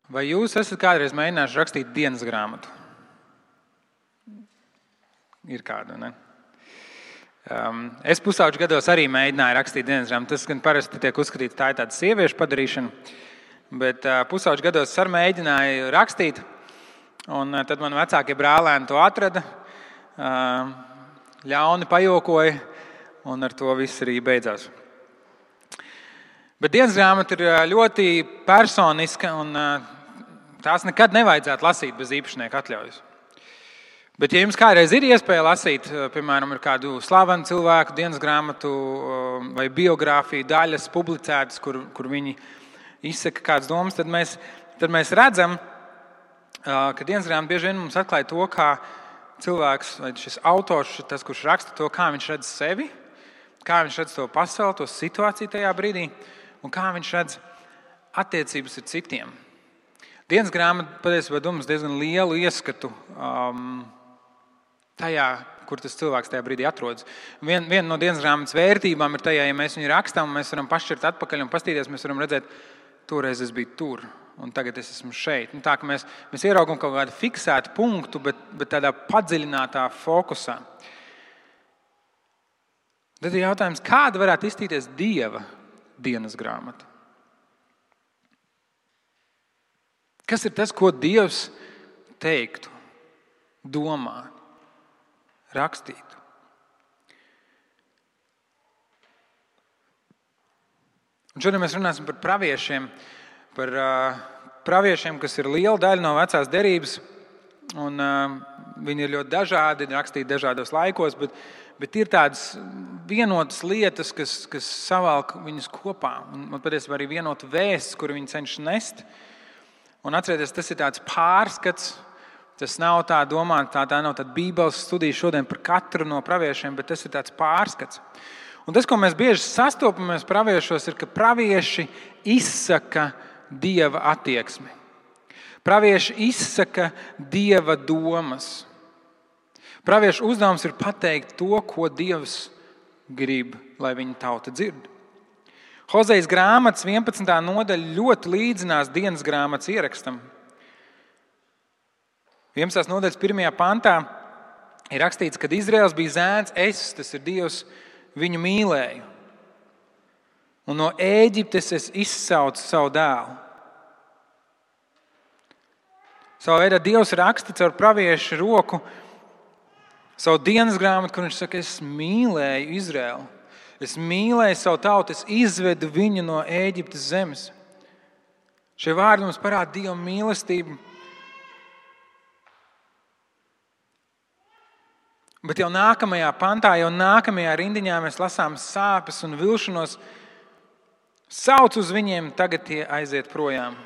Vai jūs esat kādreiz mēģinājuši rakstīt dienas grāmatu? Ir kāda, ne? Es pusauģu gados arī mēģināju rakstīt dienas grāmatu. Tas gan parasti tiek uzskatīts, tā ir tāda sieviešu padarīšana, bet pusauģu gados es arī mēģināju rakstīt, un tad man vecākie brālēni to atrada, ļauni pajokoja, un ar to viss arī beidzās. Bet dienas grāmata ir ļoti personiska, un tās nekad nevajadzētu lasīt bez īpašnieka atļaujas. Bet, ja jums kādreiz ir iespēja lasīt, piemēram, ir kādu slavenu cilvēku dienas grāmatu vai biogrāfiju daļas publicētas, kur viņi izsaka kādas domas, tad mēs redzam, ka dienas grāmata bieži vien mums atklāja to, kā cilvēks vai šis autors, tas, kurš raksta to, kā viņš redz sevi, kā viņš redz to pasauli, to situāciju tajā brīdī, un kā viņš redz attiecības ar citiem. Dienas grāmata patiesībā dod mums diezgan lielu ieskatu tajā, kur tas cilvēks tajā brīdī atrodas. Viena no dienas grāmatas vērtībām ir tajā, ja mēs viņu rakstām, mēs varam pašķirt atpakaļ un pastīties, mēs varam redzēt, toreiz es biju tur, un tagad es esmu šeit. Tā, ka mēs ieraugam kaut kādu fiksētu punktu, bet tādā padziļinātā fokusā. Tad ir jautājums, kāda varētu izstīties Dieva dienas grāmata? Kas ir tas, ko Dievs teiktu, domā, rakstītu? Un šodien mēs runāsim par praviešiem, kas ir liela daļa no vecās derības, un viņi ir ļoti dažādi, rakstīti dažādos laikos, bet ir tādas vienotas lietas, kas savalk viņus kopā, un patiesībā arī vienota vēsts, kuru viņi cenšas nest. Un atcerieties, tas ir tāds pārskats, tas nav tā domāta, tā nav tāda Bībeles studija šodien par katru no praviešiem, bet tas ir tāds pārskats. Un tas, ko mēs bieži sastopamies praviešos, ir, ka pravieši izsaka Dieva attieksmi. Pravieši izsaka Dieva domas. Praviešu uzdevums ir pateikt to, ko Dievs grib, lai viņa tauta dzird. Hozejas grāmatas 11. nodaļa ļoti līdzinās dienas grāmatas ierakstam. 11. nodaļas 1. pantā ir rakstīts, kad Izraels bija zēns, tas ir Dievs, viņu mīlēju. Un no Ēģiptes es izsaucu savu dēlu. Savā veidā Dievs raksta caur praviešu roku savu dienas grāmatu, kur viņš saka, es mīlēju Izraelu. Es mīlēju savu tautu, es izvedu viņu no Ēģiptes zemes. Šie vārdi mums parāda Dieva mīlestību. Bet jau nākamajā pantā, jau nākamajā rindiņā mēs lasām sāpes un vilšanos. Sauc uz viņiem, tagad tie aiziet projām.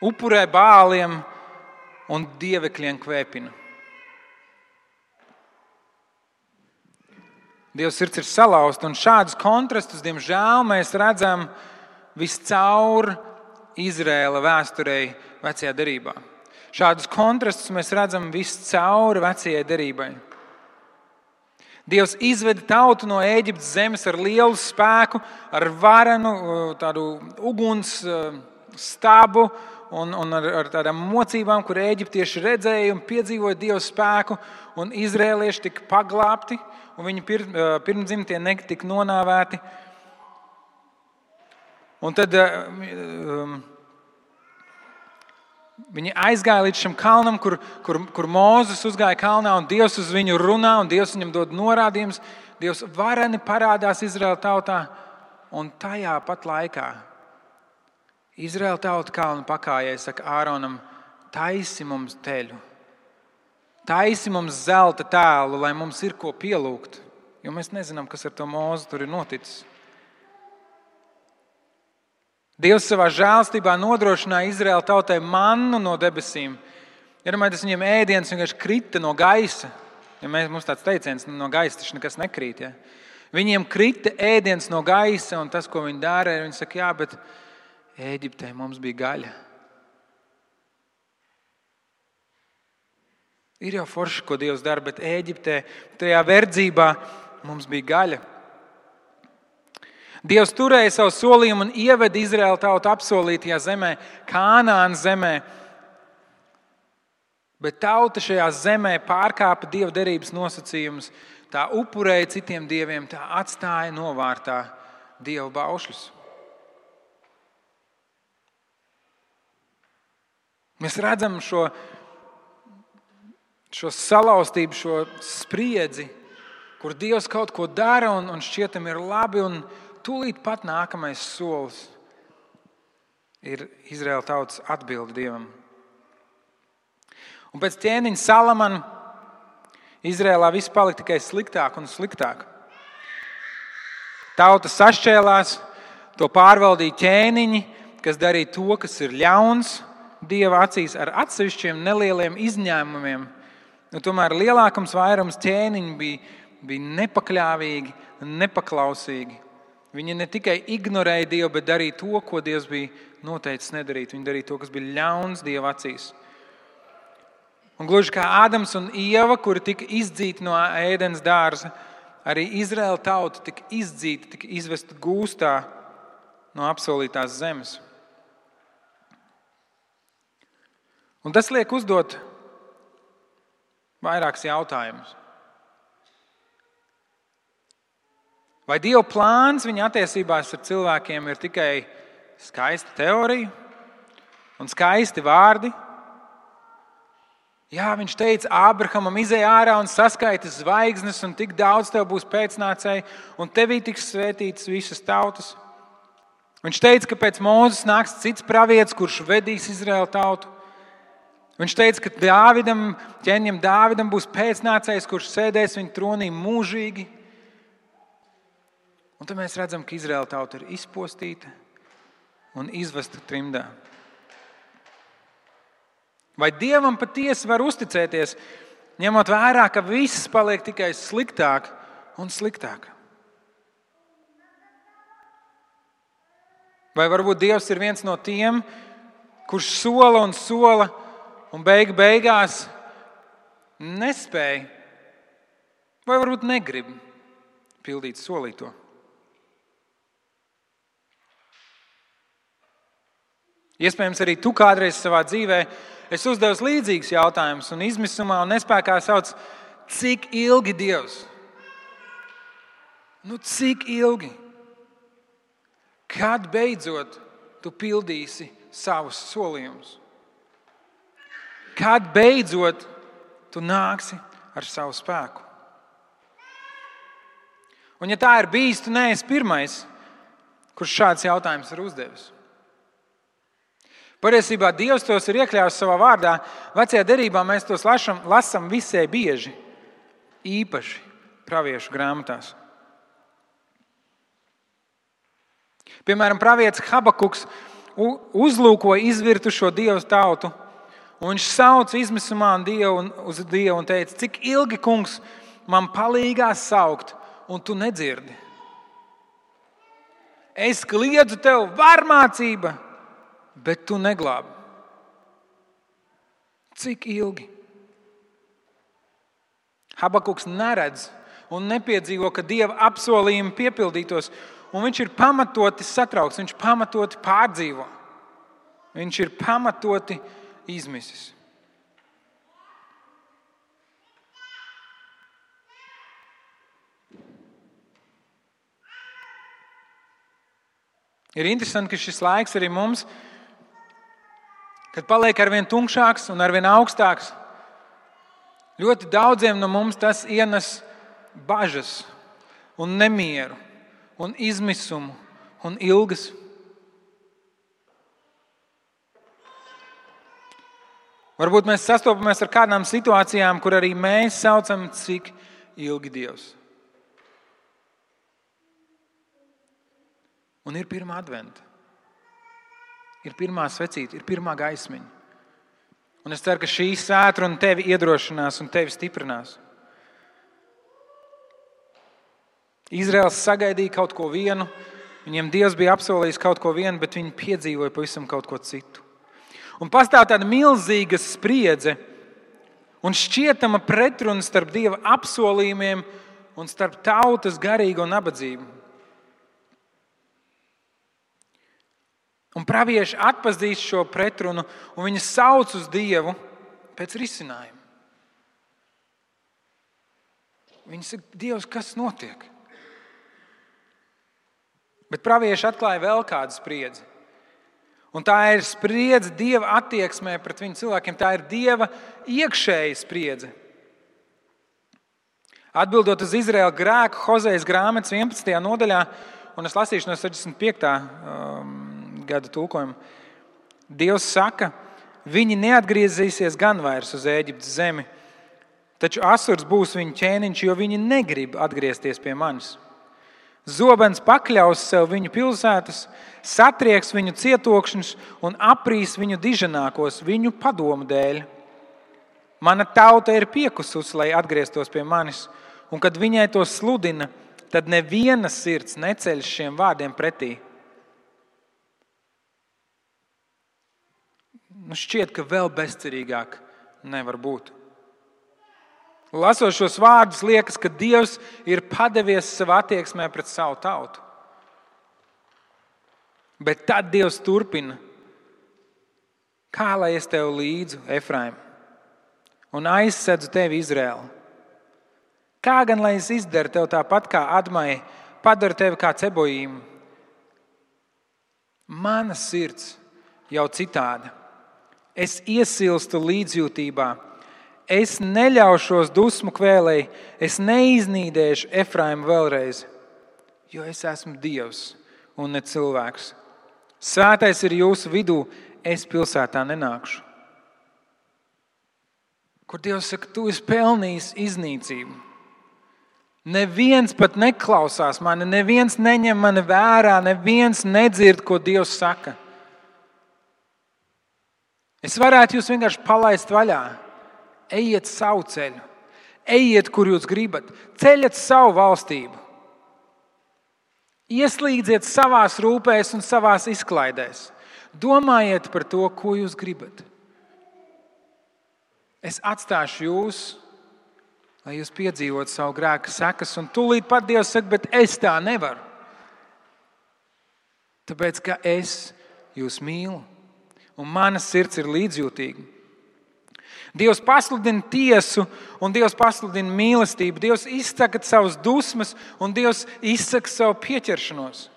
Upurē bāliem un dievekļiem kvēpina. Dievs sirds ir salauzta, un šādus kontrastus, diemžēl, mēs redzam viscaur Izraēla vēsturei vecajā derībā. Šādus kontrastus mēs redzam viscaur vecajai derībai. Dievs izveda tautu no Ēģiptes zemes ar lielu spēku, ar varenu, tādu uguns stabu un ar tādām mocībām, kur ēģiptieši redzēja un piedzīvoja Dieva spēku, un izrēlieši tika paglābti, un viņu pirmdzimtie netika nonāvēti. Un tad viņi aizgāja līdz šim kalnam, kur Mūzes uzgāja kalnā, un Dievs uz viņu runā, un Dievs viņam dod norādījumus. Dievs vareni parādās Izraēla tautā, un tajā pat laikā Izraēla tauta kalna pakājai saka Āronam, taisi mums teļu, taisi mums zelta tēlu, lai mums ir ko pielūgt, jo mēs nezinām, kas ar to Mūzu tur ir noticis. Dievs savā žēlstībā nodrošināja Izraēla tautai mannu no debesīm. Iedomājieties, viņiem ēdiens vienkārši krita no gaisa. Ja mums tāds teiciens, no gaisa taču nekas nekrīt. Ja? Viņiem krita ēdiens no gaisa, un tas, ko viņi dara, viņi saka, jā, bet Ēģiptē mums bija gaļa. Ir jau forši, ko Dievs dara, bet Ēģiptē, tajā verdzībā mums bija gaļa. Dievs turēja savu solījumu un ieveda Izraēlu tautu apsolītajā zemē, Kānaānas zemē. Bet tauta šajā zemē pārkāpa Dieva derības nosacījumus. Tā upurēja citiem dieviem, tā atstāja novārtā Dieva baušļus. Mēs redzam šo salauztību, šo spriedzi, kur Dievs kaut ko dara un šķietam ir labi, un tūlīt pat nākamais solis ir Izraēla tautas atbilde Dievam. Un pēc ķēniņa Salamana Izraēlā viss palika tikai sliktāk un sliktāk. Tauta sašķēlās, to pārvaldīja ķēniņi, kas darīja to, kas ir ļauns Dieva acīs, ar atsevišķiem nelieliem izņēmumiem. Tomēr lielākums vairums ķēniņi bija nepakļāvīgi un nepaklausīgi. Viņi ne tikai ignorēja Dievu, bet darīja to, ko Dievs bija noteicis nedarīt. Viņi darīja to, kas bija ļauns Dieva acīs. Un gluži kā Ādams un Ieva, kuri tika izdzīti no Ēdenes dārza, arī Izraēla tauta tika izdzīta, tika izvesta gūstā no apsolītās zemes. Un tas liek uzdot vairākus jautājumus. Vai Dieva plāns viņa attiecībās ar cilvēkiem ir tikai skaista teorija un skaisti vārdi? Jā, viņš teica Ābrahamam, izej ārā un saskaiti zvaigznes, un tik daudz tev būs pēcnācēji, un tevī tiks svētītas visas tautas. Viņš teica, ka pēc Mūzes nāks cits pravietis, kurš vedīs Izraēlu tautu. Viņš teica, ka ķēniņam Dāvidam būs pēcnācējs, kurš sēdēs viņa tronī mūžīgi. Un tad mēs redzam, ka Izraēla tauta ir izpostīta un izvesta trimdā. Vai Dievam patiesi var uzticēties, ņemot vērā, ka viss paliek tikai sliktāk un sliktāk? Vai varbūt Dievs ir viens no tiem, kurš sola un beigās nespēja vai varbūt negrib pildīt solīto? Iespējams, arī tu kādreiz savā dzīvē esi uzdevis līdzīgus jautājumus un izmisumā un nespēkā sauc, cik ilgi Dievs? Cik ilgi? Kad beidzot tu pildīsi savus solījumus? Kad beidzot tu nāksi ar savu spēku? Un ja tā ir bijis, tu neesi pirmais, kurš šāds jautājums ir uzdevis. Patiesībā Dievs tos ir iekļāvis savā vārdā. Vecajā derībā mēs tos lasām visai bieži, īpaši praviešu grāmatās. Piemēram, pravietis Habakuks uzlūkoja izvirtušo Dievu tautu, un viņš sauca izmisumā uz Dievu un teica, cik ilgi, kungs, man palīgā saukt, un tu nedzirdi. Es kliedzu tev varmācība, bet tu neglābi. Cik ilgi? Habakuks neredz un nepiedzīvo, ka Dieva apsolījumi piepildītos, un viņš ir pamatoti satraukts, viņš pamatoti pārdzīvo. Viņš ir pamatoti izmisis. Ir interesanti, ka šis laiks arī mums, kad paliek arvien tumšāks un arvien augstāks, ļoti daudziem no mums tas ienes bažas un nemieru un izmisumu un ilgas. Varbūt mēs sastopamies ar kādām situācijām, kur arī mēs saucam, cik ilgi Dievs. Un ir pirmā adventa. Ir pirmā svecīte, ir pirmā gaismiņa. Un es ceru, ka šī svētdiena tevi iedrošinās un tevi stiprinās. Izraels sagaidīja kaut ko vienu, viņiem Dievs bija apsolījis kaut ko vienu, bet viņi piedzīvoja pavisam kaut ko citu. Un pastāv tāda milzīga spriedze un šķietama pretruna starp Dieva apsolījumiem un starp tautas garīgo nabadzību. Un pravieši atpazīst šo pretrunu, un viņi sauc uz Dievu pēc risinājuma. Viņi saka, Dievs, kas notiek? Bet pravieši atklāja vēl kādu spriedzi. Un tā ir spriedze Dieva attieksmē pret viņu cilvēkiem. Tā ir Dieva iekšēja spriedze. Atbildot uz Izraēla grēku, Hozejas grāmatas 11. nodaļā, un es lasīšu no 65. gada tulkojuma, Dievs saka, viņi neatgriezīsies gan vairs uz Ēģiptes zemi, taču Asurs būs viņu ķēniņš, jo viņi negrib atgriezties pie manis. Zobens pakļaus sev viņu pilsētas, satrieks viņu cietokšņus un aprīs viņu diženākos viņu padomu dēļ. Mana tauta ir piekususi, lai atgrieztos pie manis, un kad viņai to sludina, tad neviena sirds neceļ šiem vārdiem pretī. Šķiet, ka vēl bezcerīgāk nevar būt. Lasot šos vārdus, liekas, ka Dievs ir padevies savā attieksmē pret savu tautu. Bet tad Dievs turpina. Kā lai es tev līdzu, Efraim, un aizsedzu tevi, Izraēlu? Kā gan lai es izdaru tev tāpat kā Admai, padaru tevi kā Ceboīmu? Mana sirds jau citāda. Es iesilstu līdzjūtībā. Es neļaušos dusmu kvēlei, es neiznīdēšu Efraimu vēlreiz, jo es esmu Dievs un ne cilvēks. Svētais ir jūsu vidū, es pilsētā nenākšu. Kur Dievs saka, tu esi pelnījis iznīcību. Neviens pat neklausās mani, neviens neņem mani vērā, neviens nedzird, ko Dievs saka. Es varētu jūs vienkārši palaist vaļā. Ejiet savu ceļu, ejiet, kur jūs gribat, ceļiet savu valstību. Ieslīdziet savās rūpēs un savās izklaidēs. Domājiet par to, ko jūs gribat. Es atstāšu jūs, lai jūs piedzīvot savu grēka sekas, un tūlīt pat Dievs saka, bet es tā nevaru. Tāpēc, ka es jūs mīlu, un mana sirds ir līdzjūtīga. Dievs pasludina tiesu un Dievs pasludina mīlestību. Dievs izsaka savas dusmas un Dievs izsaka savu pieķeršanos.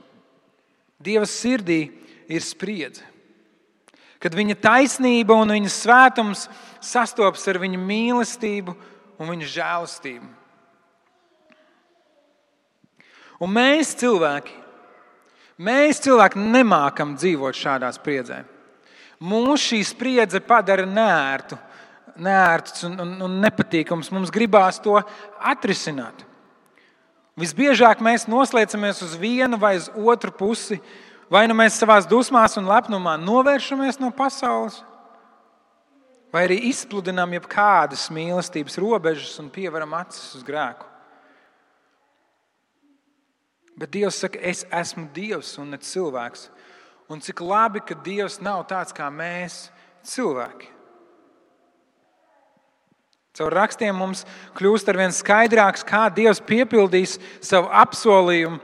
Dieva sirdī ir spriedze. Kad viņa taisnība un viņa svētums sastopas ar viņa mīlestību un viņa žēlastību. Un mēs cilvēki nemākam dzīvot šādā spriedzē. Mūs šī spriedze padara neērts un nepatīkams. Mums gribās to atrisināt. Visbiežāk mēs noslēdzamies uz vienu vai uz otru pusi. Vai nu mēs savās dusmās un lepnumā novēršamies no pasaules, vai arī izpludinām jebkādas mīlestības robežas un pievaram acis uz grēku. Bet Dievs saka, es esmu Dievs un ne cilvēks. Un cik labi, ka Dievs nav tāds kā mēs, cilvēki. Caur rakstiem mums kļūst arvien skaidrāks, kā Dievs piepildīs savu apsolījumu,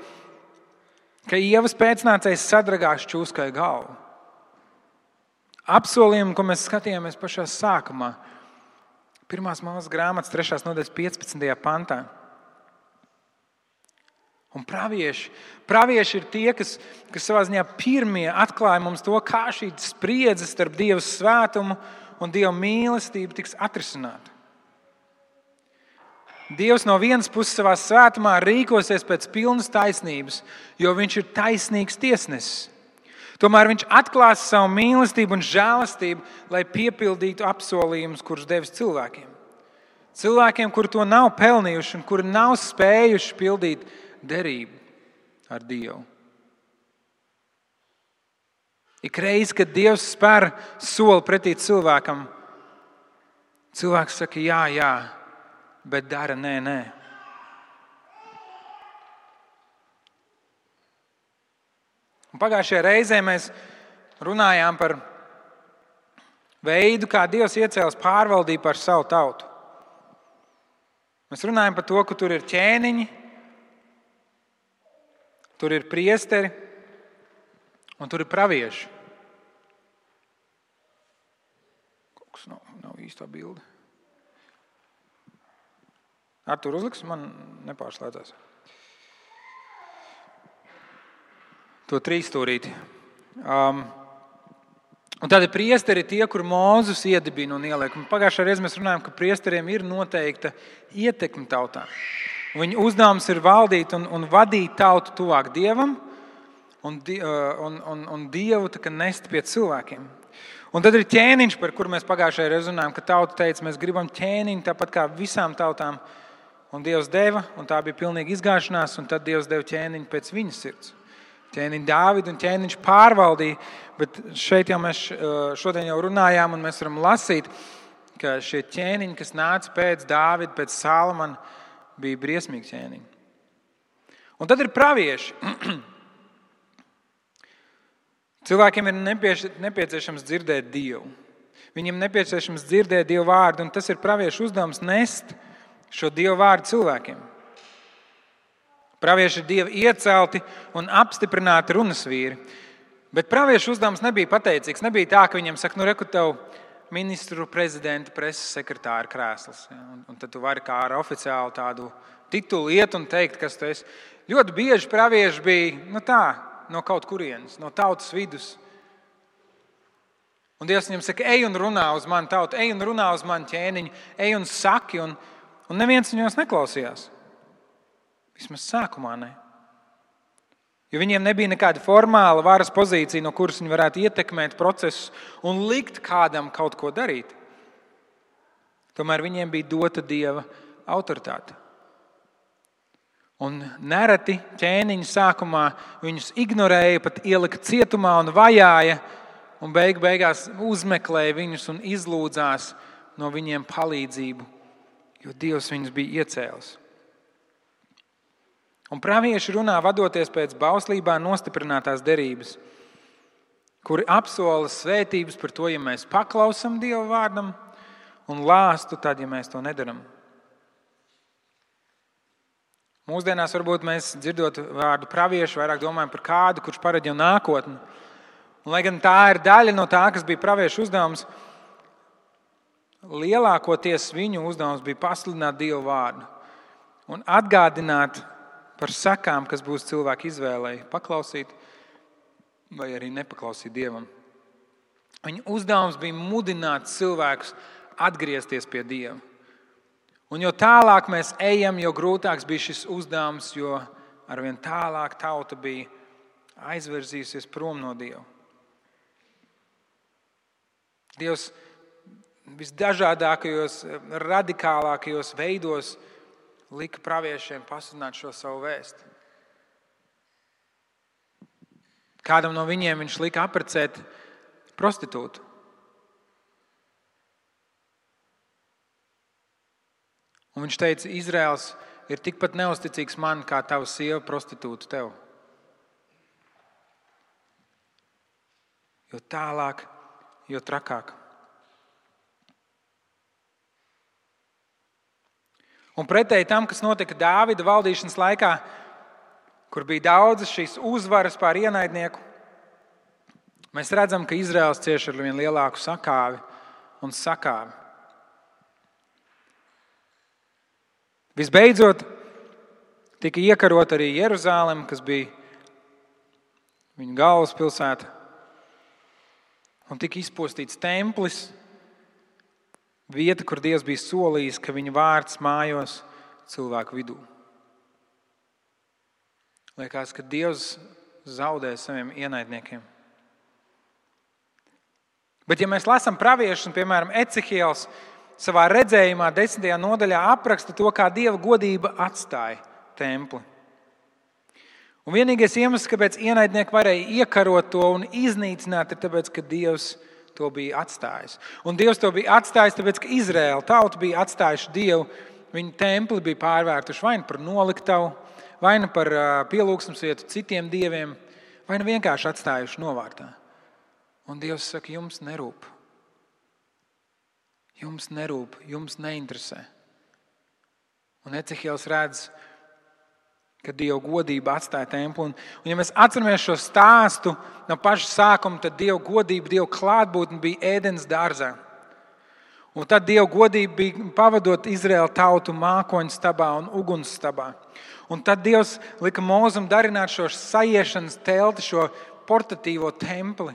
ka Ievas pēcnācējs sadragās čūskai galvu. Apsolījumu, ko mēs skatījāmies pašā sākumā. 1. Mūzes grāmatas 3. nodaļas 15. pantā. Un pravieši ir tie, kas savā ziņā pirmie atklāja mums to, kā šī spriedze starp Dieva svētumu un Dieva mīlestību tiks atrisināta. Dievs no vienas puses savā svētumā rīkosies pēc pilnas taisnības, jo viņš ir taisnīgs tiesnesis. Tomēr viņš atklās savu mīlestību un žēlastību, lai piepildītu apsolījumus, kurus devis cilvēkiem. Cilvēkiem, kuri to nav pelnījuši un kuri nav spējuši pildīt derību ar Dievu. Ik reiz, kad Dievs spēr soli pretī cilvēkam, cilvēks saka jā, bet dara nē. Un pagājušajā reizē mēs runājām par veidu, kā Dievs iecēlis pārvaldību par savu tautu. Mēs runājam par to, ka tur ir ķēniņi, tur ir priesteri un tur ir pravieši. Tas nav īstā bilde. Artur, uzliks, man nepārslēdzās. To 3 stūrīti. Un tādi priesteri ir tie, kur Mūzes iedibina un ieliek. Pagājušajā reizē mēs runājām, ka priesteriem ir noteikta ietekme tautā. Viņu uzdevums ir valdīt un vadīt tautu tuvāk Dievam un Dievu nest pie cilvēkiem. Un tad ir ķēniņš, par kuru mēs pagājušajā reizē runājām, ka tauta teica, mēs gribam ķēniņu tāpat kā visām tautām. Un Dievs deva, un tā bija pilnīga izgāšanās, un tad Dievs deva ķēniņu pēc viņa sirds. Ķēniņu Dāvidu un ķēniņš pārvaldīja, bet šeit jau mēs šodien jau runājām, un mēs varam lasīt, ka šie ķēniņi, kas nāca pēc Dāvida, pēc Salomona, bija briesmīgi ķēniņi. Un tad ir pravieši. Cilvēkiem ir nepieciešams dzirdēt Dievu. Viņiem nepieciešams dzirdēt Dievu vārdu, un tas ir praviešu uzdevums nest šo Dievu vārdu cilvēkiem. Pravieši ir Dieva iecelti un apstiprināti runas vīri. Bet praviešu uzdevums nebija pateicīgs. Nebija tā, ka viņam saka, reku tev ministru, prezidenta, preses sekretāra krēsls. Un tad tu vari kā ar oficiālu tādu titulu iet un teikt, kas tu esi. Ļoti bieži pravieši bija no kaut kurienes, no tautas vidus. Un Dievs viņam saka, ej un runā uz mani tautu, ej un runā uz mani ķēniņu, ej un saki. Un neviens viņos neklausījās. Vismaz sākumā ne. Jo viņiem nebija nekāda formāla varas pozīcija, no kuras viņi varētu ietekmēt procesus un likt kādam kaut ko darīt. Tomēr viņiem bija dota Dieva autoritāte. Un nereti ķēniņi sākumā viņus ignorēja, pat ielika cietumā un vajāja, un beigās uzmeklēja viņus un izlūdzās no viņiem palīdzību, jo Dievs viņus bija iecēlis. Un pravieši runā vadoties pēc bauslībā nostiprinātās derības, kuri apsola svētības par to, ja mēs paklausam Dieva vārdam, un lāstu tad, ja mēs to nedaram. Mūsdienās varbūt mēs dzirdot vārdu praviešu vairāk domājam par kādu, kurš paredz jau nākotni. Un, lai gan tā ir daļa no tā, kas bija praviešu uzdevums, lielākoties viņu uzdevums bija pasludināt Dieva vārdu un atgādināt par sakām, kas būs cilvēku izvēlei paklausīt vai arī nepaklausīt Dievam. Viņa uzdevums bija mudināt cilvēkus atgriezties pie Dieva. Un jo tālāk mēs ejam, jo grūtāks bija šis uzdevums, jo arvien tālāk tauta bija aizvirzījusies prom no Dieva. Dievs visdažādākajos, radikālākajos veidos lika praviešiem pasludināt šo savu vēstu. Kādam no viņiem viņš lika apprecēt prostitūtu. Un viņš teica, Izraels ir tikpat neusticīgs man, kā tava sieva prostitūta tev. Jo tālāk, jo trakāk. Un pretēji tam, kas notika Dāvida valdīšanas laikā, kur bija daudzas šīs uzvaras pār ienaidnieku, mēs redzam, ka Izraels cieš ar vien lielāku sakāvi un sakāvi. Visbeidzot, tika iekarota arī Jeruzāleme, kas bija viņa galvaspilsēta, un tika izpostīts templis, vieta, kur Dievs bija solījis, ka viņa vārds mājos cilvēku vidū. Liekas, ka Dievs zaudē saviem ienaidniekiem. Bet ja mēs lasām praviešus, un piemēram Ecehiels savā redzējumā 10. nodaļā apraksta to, kā Dieva godība atstāja templi. Un vienīgais iemesls, kāpēc ienaidnieki varēja iekarot to un iznīcināt, ir tāpēc, ka Dievs to bija atstājis. Un Dievs to bija atstājis, tāpēc, ka Izraēla tauta bija atstājuši Dievu. Viņa templi bija pārvērtuši vai nu par noliktavu, vai nu par pielūgsmes vietu citiem dieviem, vai nu vienkārši atstājuši novārtā. Un Dievs saka, jums nerūp. Jums nerūp, jums neinteresē. Un Ecehiels redz, ka Dieva godība atstāja templi. Un ja mēs atceramies šo stāstu no paša sākuma, tad Dieva godība, Dieva klātbūtne bija Ēdens dārzā. Un tad Dieva godība bija pavadot Izraēlu tautu mākoņu stabā un uguns stabā. Un tad Dievs lika Mūzum darināt šo sajiešanas telti, šo portatīvo templi,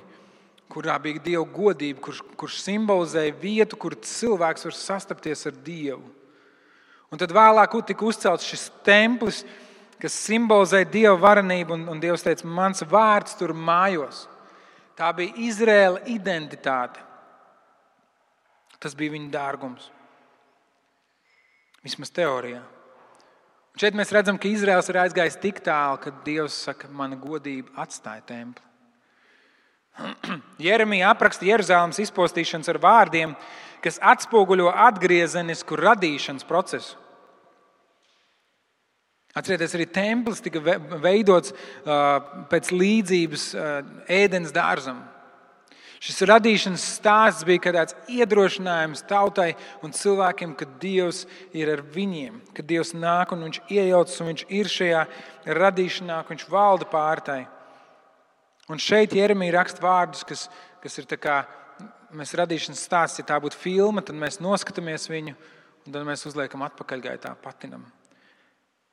kurā bija Dieva godība, kurš simbolizēja vietu, kur cilvēks var sastapties ar Dievu. Un tad vēlāk tika uzcelts šis templis, kas simbolizēja Dieva varenību, un Dievs teica, mans vārds tur mājos. Tā bija Izraēla identitāte. Tas bija viņa dārgums. Vismaz teorijā. Un šeit mēs redzam, ka Izraēls ir aizgājis tik tālu, ka Dievs saka, mana godība atstāja templi. Jeremija apraksta Jeruzalemes izpostīšanas ar vārdiem, kas atspoguļo atgriezenisku radīšanas procesu. Atcerieties, arī templis tika veidots pēc līdzības ēdens dārzam. Šis radīšanas stāsts bija kā tāds iedrošinājums tautai un cilvēkiem, ka Dievs ir ar viņiem, ka Dievs nāk un viņš iejaucas un viņš ir šajā radīšanā, ka viņš valda pār tai. Un šeit Jeremija raksta vārdus, kas ir tā kā mēs radīšanas stāsts, ja tā būtu filma, tad mēs noskatāmies viņu un tad mēs uzliekam atpakaļgaitā, patinam.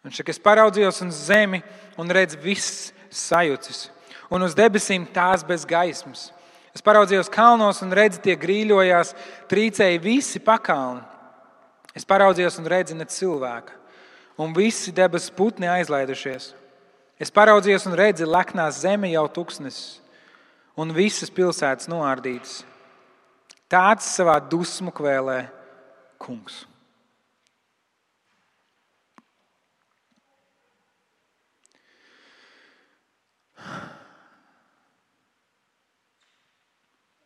Viņš saka, es paraudzījos uz zemi un redzu viss sajucis, un uz debesīm tās bez gaismas. Es paraudzījos kalnos un redzu, tie grīļojās, trīcēja visi pakalni. Es paraudzījos un redzu ne cilvēka, un visi debesu putni aizlaidušies. Es paraudzījos un redzu, leknās zeme jau tuksnesis, un visas pilsētas noārdītas. Tāds savā dusmu kvēlē kungs.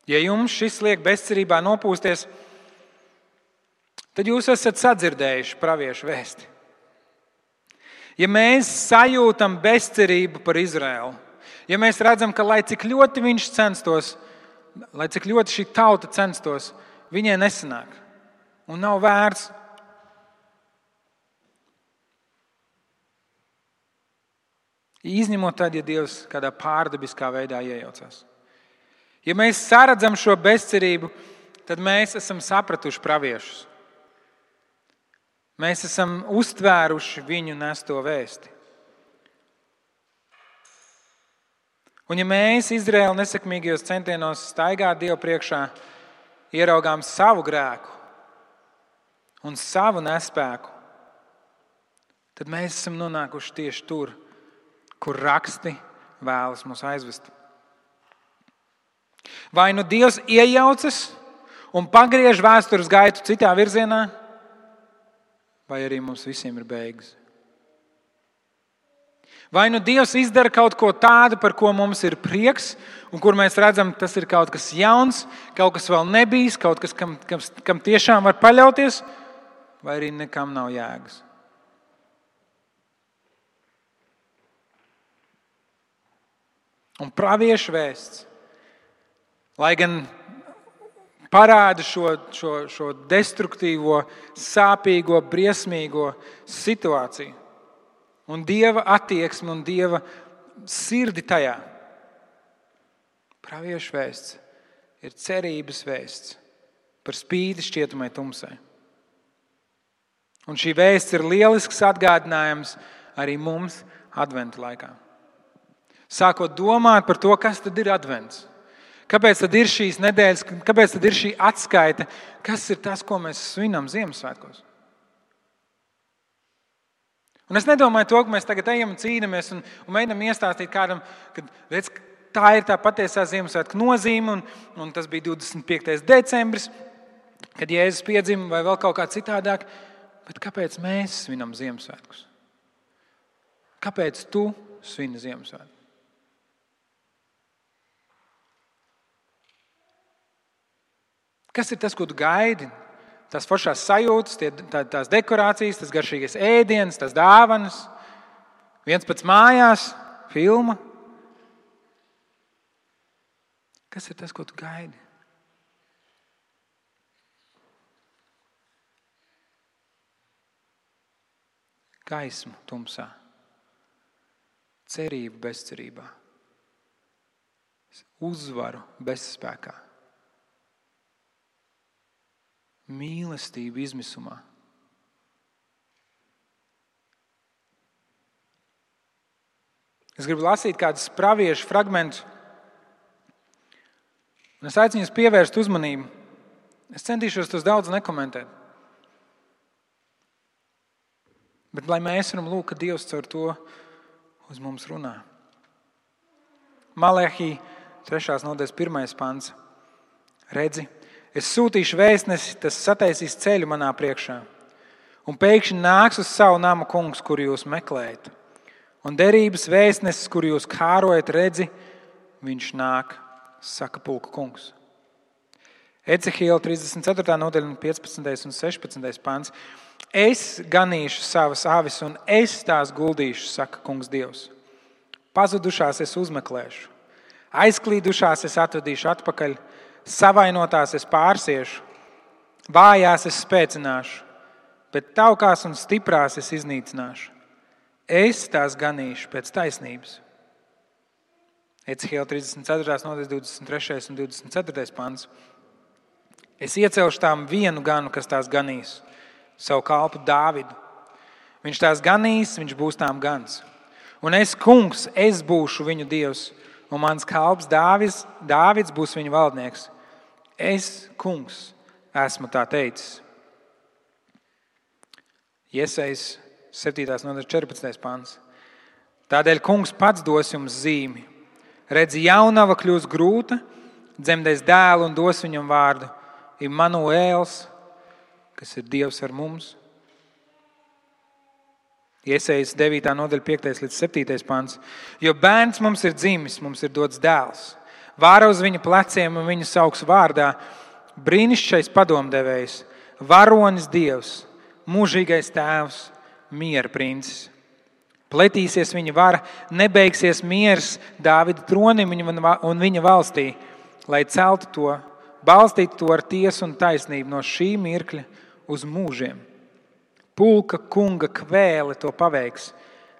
Ja jums šis liek bezcerībā nopūsties, tad jūs esat sadzirdējuši praviešu vēsti. Ja mēs sajūtam bezcerību par Izraēlu, ja mēs redzam, ka lai cik ļoti viņš censtos, lai cik ļoti šī tauta censtos, viņai nesanāk un nav vērts. Izņemot tad, ja Dievs kādā pārdabiskā veidā iejaucās. Ja mēs saredzam šo bezcerību, tad mēs esam sapratuši praviešus. Mēs esam uztvēruši viņu nesto vēsti. Un ja mēs Izraēla nesekmīgajos centienos staigāt Dievu priekšā, ieraugām savu grēku un savu nespēku, tad mēs esam nonākuši tieši tur, kur raksti vēlas mūs aizvest. Vai nu Dievs iejaucas un pagriež vēstures gaitu citā virzienā, vai arī mums visiem ir beigas. Vai nu Dievs izdara kaut ko tādu, par ko mums ir prieks, un kur mēs redzam, tas ir kaut kas jauns, kaut kas vēl nebijis, kaut kas, kam tiešām var paļauties, vai arī nekam nav jēgas. Un praviešu vēsts, lai gan parāda šo destruktīvo, sāpīgo, briesmīgo situāciju un Dieva attieksmi un Dieva sirdi tajā. Praviešu vēsts ir cerības vēsts par spīti šķietamai tumsai. Un šī vēsts ir lielisks atgādinājums arī mums adventa laikā. Sākot domāt par to, kas tad ir advents. Kāpēc tad ir šīs nedēļas, kāpēc tad ir šī atskaite? Kas ir tas, ko mēs svinam Ziemassvētkos? Un es nedomāju to, ka mēs tagad ejam un cīnāmies un mēģinām iestāstīt kādam, ka redz, tā ir tā patiesā Ziemassvētku nozīme un tas bija 25. decembris, kad Jēzus piedzima vai vēl kaut kā citādāk. Bet kāpēc mēs svinam Ziemassvētkus? Kāpēc tu svini Ziemassvētkus? Kas ir tas, ko tu gaidi? Tās foršās sajūtas, tās dekorācijas, tas garšīgais ēdiens, tās dāvanas, viens pats mājās, filma. Kas ir tas, ko tu gaidi? Gaismu tumsā, cerību bezcerībā, uzvaru bezspēkā. Mīlestība izmisumā. Es gribu lasīt kādus praviešu fragmentus, un es aicinu jūs pievērst uzmanību. Es centīšos tos daudz nekomentēt. Bet lai mēs varam lūgt, ka Dievs caur to uz mums runā. Malehī 3. nodaļas 1. pants. Redzi, es sūtīšu vēstnesi, tas sataisīs ceļu manā priekšā. Un pēkšņi nāks uz savu namu kungs, kuru jūs meklējat. Un derības vēstnesis, kuru jūs kārojat, redzi, viņš nāk, saka pulka kungs. Ecehiela 34. nodaļa 15. un 16. pants. Es ganīšu savas avis un es tās guldīšu, saka kungs Dievs. Pazudušās es uzmeklēšu, aizklīdušās es atvedīšu atpakaļ, savainotās es pārsiešu, vājās es spēcināšu, bet taukās un stiprās es iznīcināšu. Es tās ganīšu pēc taisnības. Ecehiela 34. nodaļas 23. un 24. pants. Es iecelšu tām vienu ganu, kas tās ganīs, savu kalpu Dāvidu. Viņš tās ganīs, viņš būs tām gans. Un es, kungs, es būšu viņu Dievs, un mans kalps Dāvids būs viņu valdnieks. Es, kungs, esmu tā teicis. Jesajas 7. nodaļas 14. pants. Tādēļ kungs pats dos jums zīmi. Redzi, jaunava kļūs grūta, dzemdēs dēlu un dos viņam vārdu Immanuēls, kas ir Dievs ar mums. Jesajas 9. nodaļa 5. līdz 7. pants. Jo bērns mums ir dzimis, mums ir dots dēls. Vāra uz viņa pleciem un viņu sauks vārdā brīnišķīgais padomdevējs, varonis Dievs, mūžīgais tēvs, miera princis. Pletīsies viņa vara, nebeigsies miers Dāvida tronim un viņa valstī, lai celtu to, balstītu to ar tiesu un taisnību no šī mirkļa uz mūžiem. Pulka kunga kvēle to paveiks.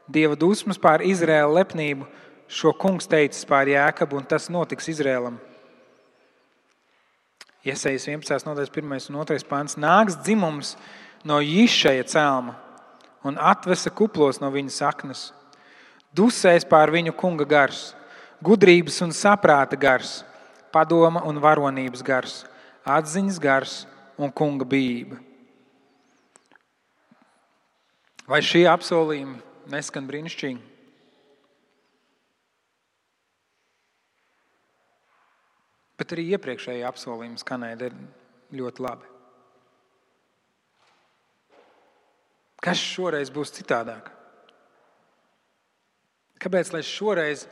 Dieva dusmas pār Izraēla lepnību šo kungs teicis pār Jākabu, un tas notiks Izraēlam. Jesajas 11. nodaļas 1. un 2. pants. Nāks dzimums no Jišaja celma un atvesa kuplos no viņa saknes. Dusēs pār viņu kunga gars, gudrības un saprāta gars, padoma un varonības gars, atziņas gars un kunga bijība. Vai šie apsolījumi neskan brīnišķīgi? Bet arī iepriekšējie apsolījumi skanēja ļoti labi. Kas šoreiz būs citādāk? Kāpēc, lai šoreiz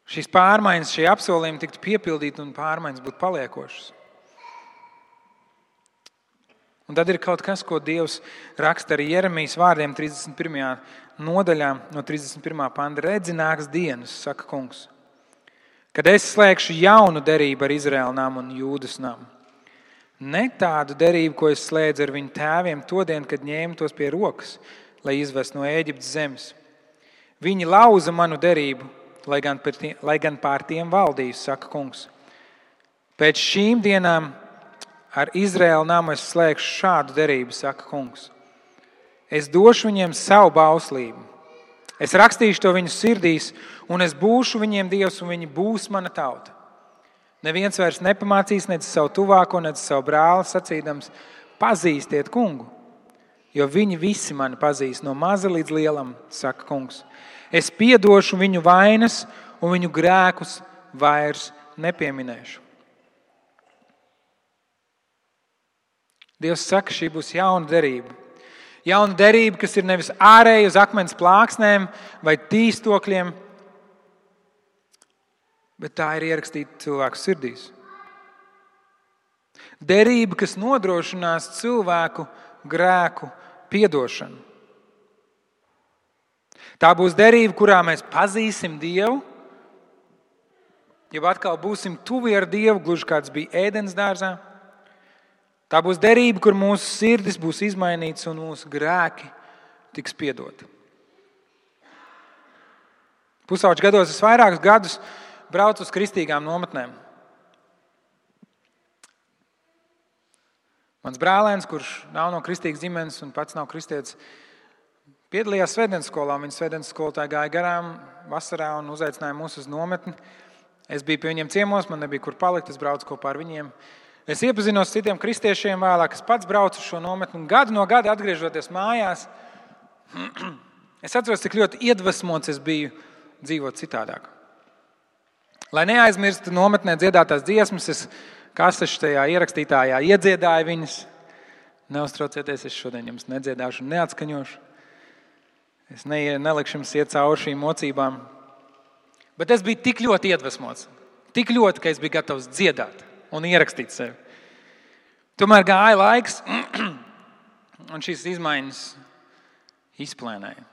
šīs pārmaiņas, šie apsolījumi tiktu piepildīti un pārmaiņas būtu paliekošas? Un tad ir kaut kas, ko Dievs raksta arī Jeremijas vārdiem 31. nodaļā no 31. panta. Redzi, nāks dienas, saka kungs, kad es slēgšu jaunu derību ar Izraēla namu un Jūdas namu. Ne tādu derību, ko es slēdzu ar viņu tēviem to dienu, kad ņēmu tos pie rokas, lai izvestu no Ēģiptes zemes. Viņi lauza manu derību, lai gan pār tiem valdīju, saka kungs. Pēc šīm dienām ar Izraēla namu es slēgšu šādu derību, saka kungs. Es došu viņiem savu bauslību. Es rakstīšu to viņu sirdīs, un es būšu viņiem Dievs, un viņi būs mana tauta. Neviens vairs nepamācīs nec savu tuvāko, nec savu brāli, sacīdams, pazīstiet kungu, jo viņi visi mani pazīst no maza līdz lielam, saka kungs. Es piedošu viņu vainas, un viņu grēkus vairs nepieminēšu. Dievs saka, šī būs jauna derība. Jauna derība, kas ir nevis ārēji uz akmens plāksnēm vai tīstokļiem, bet tā ir ierakstīta cilvēku sirdīs. Derība, kas nodrošinās cilvēku grēku piedošanu. Tā būs derība, kurā mēs pazīsim Dievu, jau atkal būsim tuvi ar Dievu, gluži kāds bija Ēdens dārzā. Tā būs derība, kur mūsu sirdis būs izmainīts un mūsu grēki tiks piedoti. Pusauģu gados es vairākus gadus braucu uz kristīgām nometnēm. Mans brālēns, kurš nav no kristīgas ģimenes un pats nav kristietis, piedalījās svētdienas skolā. Viņa svētdienas skolotāja gāja garām vasarā un uzaicināja mūs uz nometni. Es biju pie viņiem ciemos, man nebija kur palikt, es braucu kopā ar viņiem. Es iepazinos citiem kristiešiem vēlāk, es pats braucu uz šo nometni, un gadu no gada atgriežoties mājās, es atceros, cik ļoti iedvesmots es biju dzīvot citādāk. Lai neaizmirstu nometnē dziedātās dziesmas, es kasešu tajā ierakstītājā iedziedāju viņas. Neuztraucieties, es šodien jums nedziedāšu un neatskaņošu. Es nelikšu jums iet cauri šīm mocībām. Bet es biju tik ļoti iedvesmots, tik ļoti, ka es biju gatavs dziedāt un ierakstīt sevi. Tomēr gāja laiks, un šīs izmaiņas izplēnēja.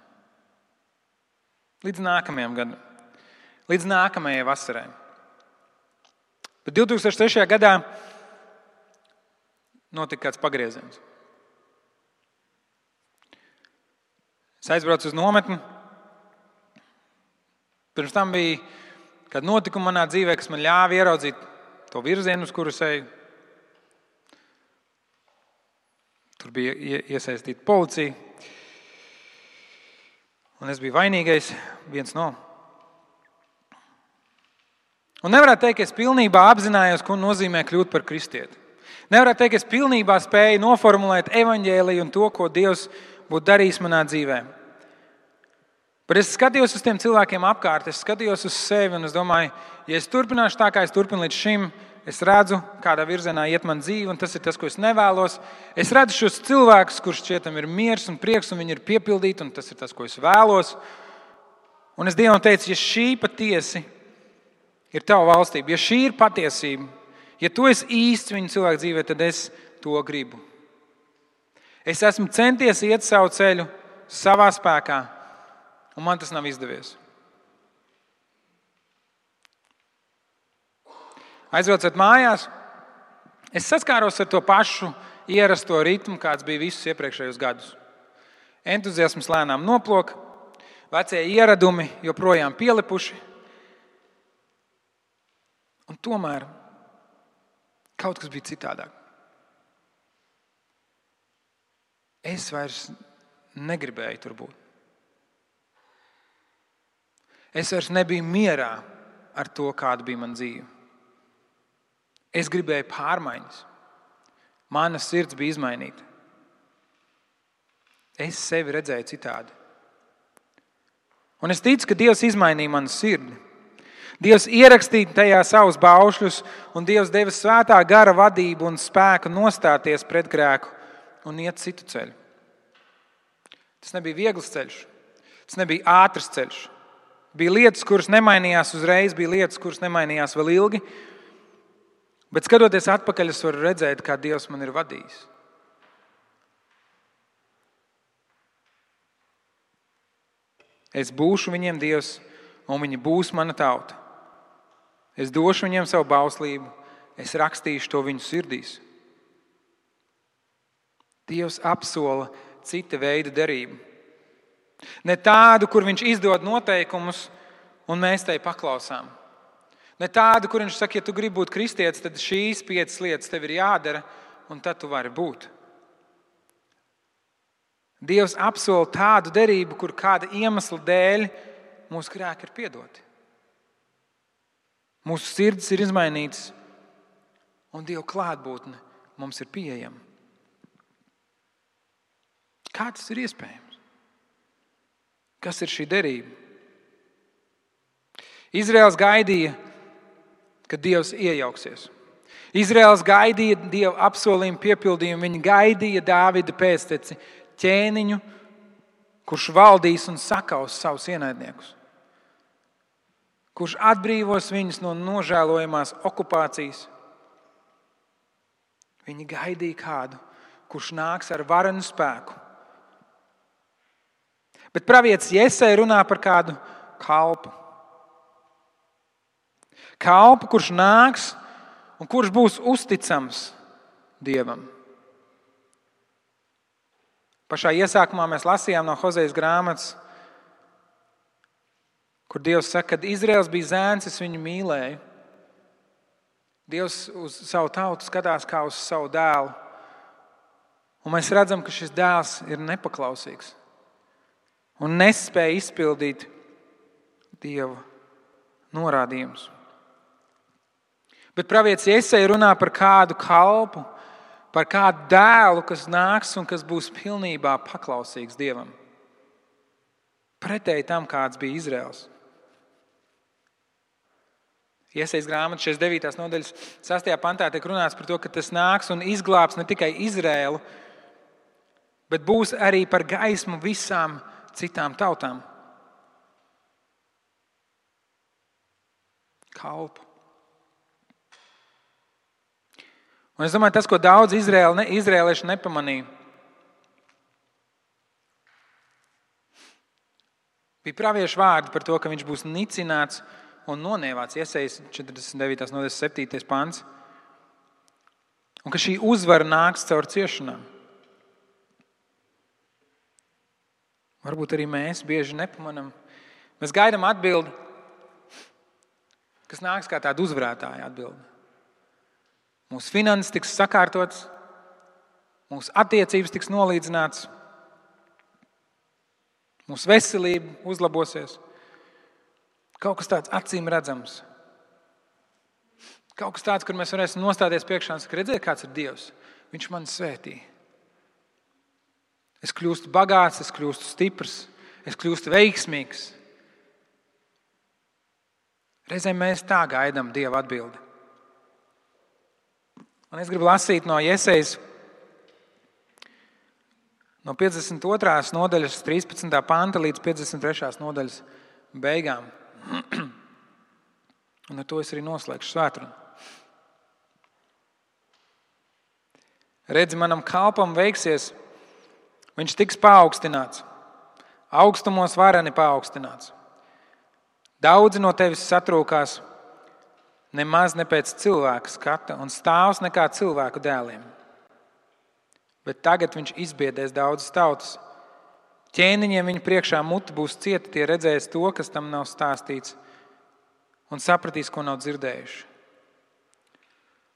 Līdz nākamajam gadam, līdz nākamajai vasarai. Bet 2003. gadā notika kāds pagrieziens. Es aizbraucu uz nometni. Pirms tam bija kāda notikuma manā dzīvē, kas man ļāva ieraudzīt to virzienu, uz kuru es eju. Tur bija iesaistīta policija. Un es biju vainīgais, viens no. Un nevarētu teikt, ka es pilnībā apzinājos, ko nozīmē kļūt par kristieti. Nevarētu teikt, ka es pilnībā spēju noformulēt evaņģēliju un to, ko Dievs būtu darījis manā dzīvē. Bet es skatījos uz tiem cilvēkiem apkārt, es skatījos uz sevi un es domāju, ja es turpināšu tā, kā es turpinu līdz šim, es redzu, kādā virzienā iet man dzīve, un tas ir tas, ko es nevēlos. Es redzu šos cilvēkus, kurš šķietam ir miers un prieks, un viņi ir piepildīti, un tas ir tas, ko es vēlos. Un es Dievam teicu, ja šī patiesi ir tava valstība, ja šī ir patiesība, ja tu esi īsts viņu cilvēku dzīvē, tad es to gribu. Es esmu centies iet savu ceļu savā spēkā, un man tas nav izdevies. Aizbraucot mājās, es saskāros ar to pašu ierasto ritmu, kāds bija visus iepriekšējos gadus. Entuziasms lēnām noplok, vecie ieradumi joprojām pielipuši, un tomēr kaut kas bija citādāk. Es vairs negribēju tur būt. Es vairs nebiju mierā ar to, kāda bija mana dzīve. Es gribēju pārmaiņas. Mana sirds bija izmainīta. Es sevi redzēju citādi. Un es ticu, ka Dievs izmainīja manu sirdi. Dievs ierakstīja tajā savus baušļus, un Dievs deva svētā gara vadību un spēku nostāties pret grēku un iet citu ceļu. Tas nebija viegls ceļš. Tas nebija ātrs ceļš. Bija lietas, kuras nemainījās uzreiz, bija lietas, kuras nemainījās vēl ilgi. Bet skatoties atpakaļ, es varu redzēt, kā Dievs man ir vadījis. Es būšu viņiem Dievs, un viņi būs mana tauta. Es došu viņiem savu bauslību, es rakstīšu to viņu sirdīs. Dievs apsola cita veida derību. Ne tādu, kur viņš izdod noteikumus, un mēs tai paklausām. Ne tādu, kur viņš saka, ja tu gribi būt kristietis, tad šīs 5 lietas tev ir jādara, un tad tu vari būt. Dievs apsola tādu derību, kur kāda iemesla dēļ mūsu grēki ir piedoti. Mūsu sirds ir izmainītas, un Dieva klātbūtne mums ir pieejama. Kā tas ir iespējams? Kas ir šī derība? Izraels gaidīja, ka Dievs iejauksies. Izraels gaidīja Dieva apsolījumu piepildījumu. Viņi gaidīja Dāvida pēcteci, ķēniņu, kurš valdīs un sakaus savus ienaidniekus. Kurš atbrīvos viņus no nožēlojamās okupācijas. Viņi gaidīja kādu, kurš nāks ar varenu spēku. Bet pravietis Jesaja runā par kādu kalpu. Kalpu, kurš nāks un kurš būs uzticams Dievam. Pašā iesākumā mēs lasījām no Hozejas grāmatas, kur Dievs saka, kad Izraels bija zēns, es viņu mīlēju. Dievs uz savu tautu skatās kā uz savu dēlu. Un mēs redzam, ka šis dēls ir nepaklausīgs un nespēja izpildīt Dieva norādījumus. Bet pravietis Jesaja runā par kādu kalpu, par kādu dēlu, kas nāks un kas būs pilnībā paklausīgs Dievam. Pretēji tam, kāds bija Izraels. Iesajas grāmata 69. nodaļas 6. pantā tiek runāts par to, ka tas nāks un izglābs ne tikai Izraēlu, bet būs arī par gaismu visām citām tautām. Kalpu. Un es domāju, tas, ko daudz izrēlieši nepamanīja, bija praviešu vārdi par to, ka viņš būs nicināts un nonievāts. Iesajas 49. nodaļas 7. pants. Un ka šī uzvara nāks caur ciešanām. Varbūt arī mēs bieži nepamanām. Mēs gaidām atbildi, kas nāks kā tāda uzvarētāja atbildi. Mūsu finanses tiks sakārtotas, mūsu attiecības tiks nolīdzināts, mūsu veselība uzlabosies. Kaut kas tāds acīm redzams. Kaut kas tāds, kur mēs varēsim nostāties priekšā un saka, redziet, kāds ir Dievs. Viņš mani svētī. Es kļūstu bagāts, es kļūstu stiprs, es kļūstu veiksmīgs. Reizēm mēs tā gaidām Dieva atbildi. Un es gribu lasīt no Jesajas, no 52. nodaļas 13. panta līdz 53. nodaļas beigām. Un ar to es arī noslēgšu svētrunu. Redzi, manam kalpam veiksies, viņš tiks paaugstināts, augstumos vareni paaugstināts. Daudzi no tevis satrūkās, nemaz ne pēc cilvēka skata un stāvs nekā cilvēku dēliem. Bet tagad viņš izbiedēs daudzas tautas. Ķēniņiem viņa priekšā muti būs cieta, tie redzēs to, kas tam nav stāstīts, un sapratīs, ko nav dzirdējuši.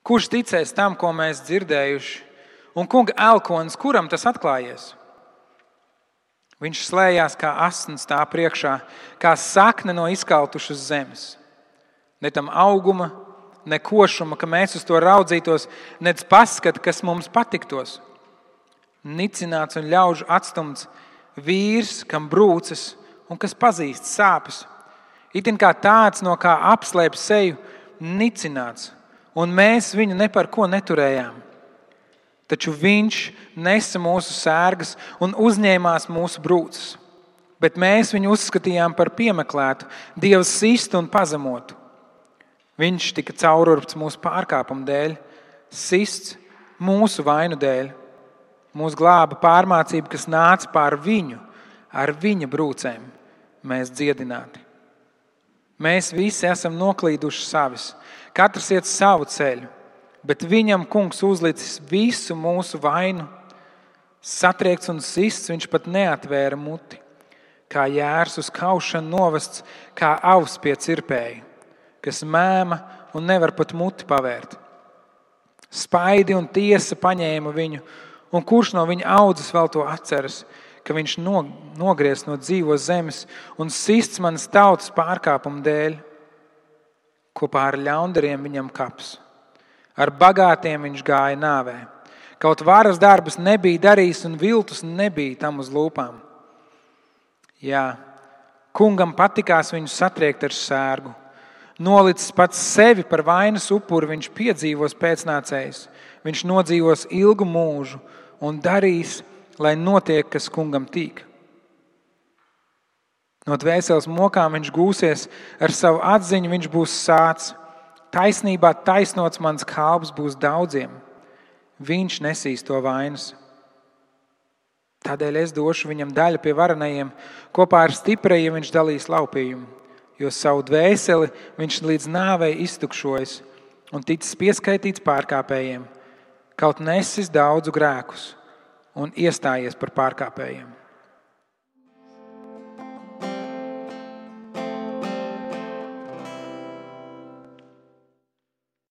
Kurš ticēs tam, ko mēs dzirdējuši, un kunga elkonis, kuram tas atklājies? Viņš slējās kā asins tā priekšā, kā sakne no izkaltušas zemes. Ne tam auguma, ne košuma, ka mēs uz to raudzītos, nec paskata, kas mums patiktos. Nicināts un ļaužu atstumts, vīrs, kam brūces un kas pazīst sāpes. Itin kā tāds, no kā apslēp seju, nicināts, un mēs viņu ne par ko neturējām. Taču viņš nesa mūsu sērgas un uzņēmās mūsu brūces. Bet mēs viņu uzskatījām par piemeklētu, Dieva sistu un pazemotu. Viņš tika caururpts mūsu pārkāpumu dēļ, sists mūsu vainu dēļ. Mūs glāba pārmācība, kas nāca pār viņu, ar viņa brūcēm mēs dziedināti. Mēs visi esam noklīduši savis, katrs iet savu ceļu, bet viņam kungs uzlicis visu mūsu vainu. Satriekts un sists, viņš pat neatvēra muti, kā jērs uz kaušanu novests, kā avs pie cirpēja, kas mēma un nevar pat muti pavērt. Spaidi un tiesa paņēma viņu, un kurš no viņa audzes vēl to atceras, ka viņš nogriez no dzīvos zemes un sists manas tautas pārkāpumu dēļ. Kopā ar ļaundariem viņam kaps. Ar bagātiem viņš gāja nāvē. Kaut varas darbus nebija darījis un viltus nebija tam uz lūpām. Jā, kungam patikās viņu satriekt ar sērgu. Nolicis pats sevi par vainas upuri, viņš piedzīvos pēcnācējs. Viņš nodzīvos ilgu mūžu un darīs, lai notiek, kas kungam tīk. No dvēseles mokām viņš gūsies, ar savu atziņu viņš būs sāts. Taisnībā taisnots mans kalps būs daudziem. Viņš nesīs to vainas. Tādēļ es došu viņam daļu pie varenajiem, kopā ar stiprajiem viņš dalīs laupījumu, jo savu dvēseli viņš līdz nāvei iztukšojas un ticis pieskaitīts pārkāpējiem, kaut nesis daudzu grēkus un iestājies par pārkāpējiem.